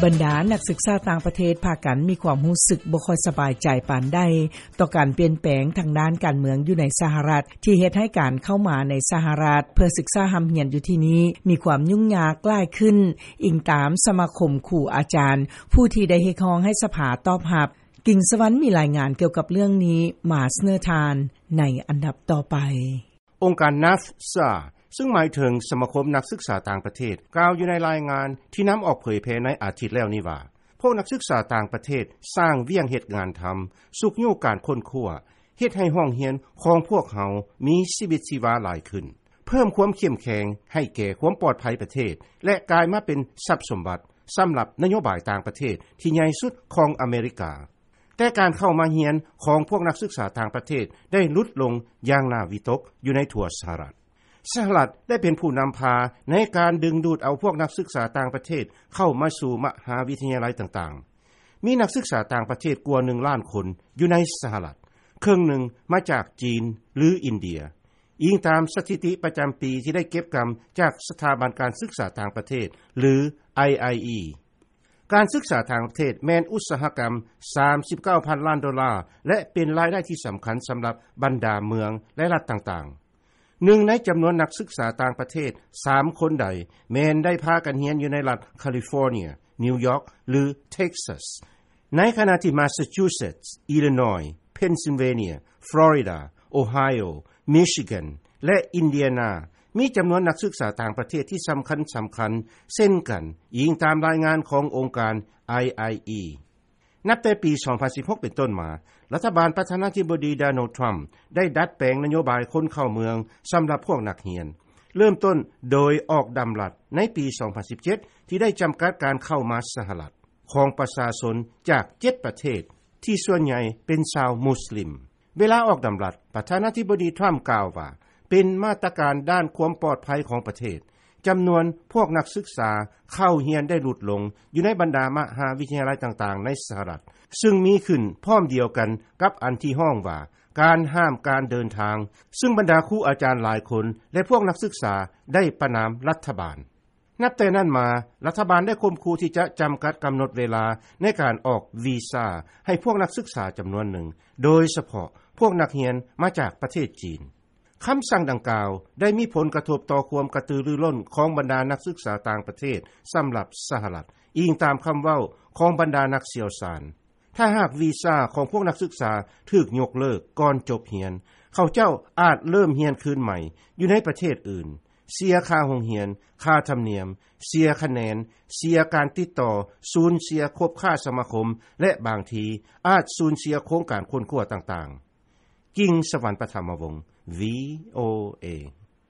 ບັນດານັກສຶກສາຕ່າງປະເທດ ພາກັນມີຄວາມຮູ້ສຶກບໍ່ຄ່ອຍສະບາຍໃຈປານໃດ ຕໍ່ການປ່ຽນແປງທາງດ້ານການເມືອງຢູ່ໃນສະຫະລັດ ທີ່ເຮັດໃຫ້ການເຂົ້າມາໃນສະຫະລັດ ເພື່ອສຶກສາຮ່ຳຮຽນຢູ່ທີ່ນີ້ ມີຄວາມຫຍຸ້ງຍາກຫຼາຍຂຶ້ນ, ອີງຕາມສະມາຄົມຄູອາຈານ ຜູ້ທີ່ໄດ້ຮຽກຮ້ອງໃຫ້ສະພາຕອບຮັບ. ກິ່ງສະຫວັນມີລາຍງານກ່ຽວກັບເລື່ອງນີ້ມາສະເໜີທ່ານໃນອັນດັບຕໍ່ໄປ. ອົງການ ນາຟຊາ ຊຶ່ງໝາຍເຖິງສະມາຄົມນັກສຶກສາຕ່າງປະເທດ ກ່າວຢູ່ໃນລາຍງານທີ່ນຳອອກເຜີຍແຜ່ໃນອາທິດແລ້ວນີ້ວ່າ ພວກນັກສຶກສາຕ່າງປະເທດສ້າງວຽກເຮັດງານທຳ, ຊຸກຍູ້ການຄົ້ນຄວ້າ, ເຮັດໃຫ້ຫ້ອງຮຽນຂອງພວກເຮົາມີຊີວິດຊີວາຫຼາຍຂຶ້ນ, ເພີ່ມຄວາມເຂັ້ມແຂງໃຫ້ແກ່ຄວາມປອດໄພປະເທດ ແລະ ກາຍມາເປັນຊັບສົມບັດສຳລັບນະໂຍບາຍຕ່າງປະເທດທີ່ໃຫຍ່ສຸດຂອງອາເມລິກາ. ແຕ່ການເຂົ້າມາຮຽນຂອງພວກນັກສຶກສາຕ່າງປະເທດໄດ້ຫຼຸດລົງຢ່າງໜ້າວິຕົກຢູ່ໃນທົ່ວສະຫະລັດ. ສະຫະລັດໄດ້ເປັນຜູ້ນຳພາໃນການດຶງດູດເອົາພວກນັກສຶກສາຕ່າງປະເທດເຂົ້າມາສູ່ມະຫາວິທະຍາໄລຕ່າງໆ. ມີນັກສຶກສາຕ່າງປະເທດກວ່າໜຶ່ງລ້ານຄົນຢູ່ໃນສະຫະລັດ, ເຄິ່ງໜຶ່ງມາຈາກຈີນ ຫຼື ອິນເດຍ, ອີງຕາມສະຖິຕິປະຈຳປີທີ່ໄດ້ເກັບກຳຈາກສະຖາບັນການສຶກສາຕ່າງປະເທດ ຫຼື ໄອໄອອີ. ການສຶກສາຕ່າງປະເທດແມ່ນອຸດສາຫະກຳສາມສິບເກົ້າພັນລ້ານໂດລາ ແລະ ເປັນລາຍໄດ້ທີ່ສຳຄັນສຳລັບບັນດາເມືອງ ແລະ ລັດຕ່າງໆ. ໜຶ່ງໃນຈຳນວນນັກສຶກສາຕ່າງປະເທດສາມຄົນໃດ ແມ່ນໄດ້ພາກັນຮຽນຢູ່ໃນລັດຄາລິຟໍເນຍ, ນິວຢອກ ຫຼື ເທັກຊັສ, ໃນຂະນະທີ່ມາສຊາຈູເຊັດ, ອິລິນອຍ, ເພັນຊິລເວເນຍ, ຟລໍຣິດາ, ໂອໄຮໂອ, ມິຊິແກນ ແລະ ອິນເດຍນາ ມີຈຳນວນນັກສຶກສາຕ່າງປະເທດທີ່ສຳຄັນໆ ເຊັ່ນກັນ, ອີງຕາມລາຍງານຂອງອົງການ ໄອໄອອີ. ນັບແຕ່ປີສອງພັນສິບຫົກເປັນຕົ້ນມາ, ລັດຖະບານປະທານາທິບໍດີ ໂດນັລ ທຣຳ ໄດ້ດັດແປງນະໂຍບາຍຄົນເຂົ້າເມືອງສຳລັບພວກນັກຮຽນ, ເລີ່ມຕົ້ນໂດຍອອກດຳລັດໃນປີສອງພັນສິບເຈັດ ທີ່ໄດ້ຈຳກັດການເຂົ້າມາສະຫະລັດຂອງປະຊາຊົນຈາກເຈັດປະເທດ ທີ່ສ່ວນໃຫຍ່ເປັນຊາວມຸສລິມ. ເວລາອອກດຳລັດ, ປະທານາທິບໍດີ ທຣຳ ກ່າວວ່າ ເປັນມາດຕະການດ້ານຄວາມປອດໄພຂອງປະເທດ, ຈຳນວນພວກນັກສຶກສາເຂົ້າຮຽນໄດ້ຫຼຸດລົງຢູ່ໃນບັນດາມະຫາວິທະຍາໄລຕ່າງໆໃນສະຫະລັດ, ຊຶ່ງມີຂຶ້ນພ້ອມດຽວກັນກັບອັນທີ່ຮ້ອງວ່າ ການຫ້າມການເດີນທາງ, ຊຶ່ງບັນດາຄູອາຈານຫຼາຍຄົນ ແລະ ພວກນັກສຶກສາໄດ້ປະນາມລັດຖະບານ. ນັບແຕ່ນັ້ນມາ, ລັດຖະບານໄດ້ຂົ່ມຂູ່ທີ່ຈະຈຳກັດກຳນົດເວລາໃນການອອກວີຊາໃຫ້ພວກນັກສຶກສາຈຳນວນໜຶ່ງ, ໂດຍສະເພາະພວກນັກຮຽນມາຈາກປະເທດຈີນ. ຄຳສັ່ງດັ່ງກ່າວໄດ້ມີຜົນກະທົບຕໍ່ຄວາມກະຕືລືລົ້ນຂອງບັນດານັກສຶກສາຕ່າງປະເທດສຳລັບສະຫະລັດ, ອີງຕາມຄຳເວົ້າຂອງບັນດານັກຊ່ຽວຊານ. ຖ້າຫາກວີຊາຂອງພວກນັກສຶກສາຖືກຍົກເລີກກ່ອນຈົບຮຽນ, ເຂົາເຈົ້າອາດເລີ່ມຮຽນຄືນໃໝ່ຢູ່ໃນປະເທດອື່ນ, ເສຍຄ່າໂຮງຮຽນ, ຄ່າທຳນຽມ, ເສຍຄະແນນ, ເສຍການຕິດຕໍ່, ສູນເສຍຄົບຄ້າສະມາຄົມ ແລະ ບາງທີອາດສູນເສຍໂຄງການຄົ້ນຄວ້າຕ່າງໆ. ກິ່ງສະຫວັນ ປະຖະມະວົງ, ວີໂອເອ.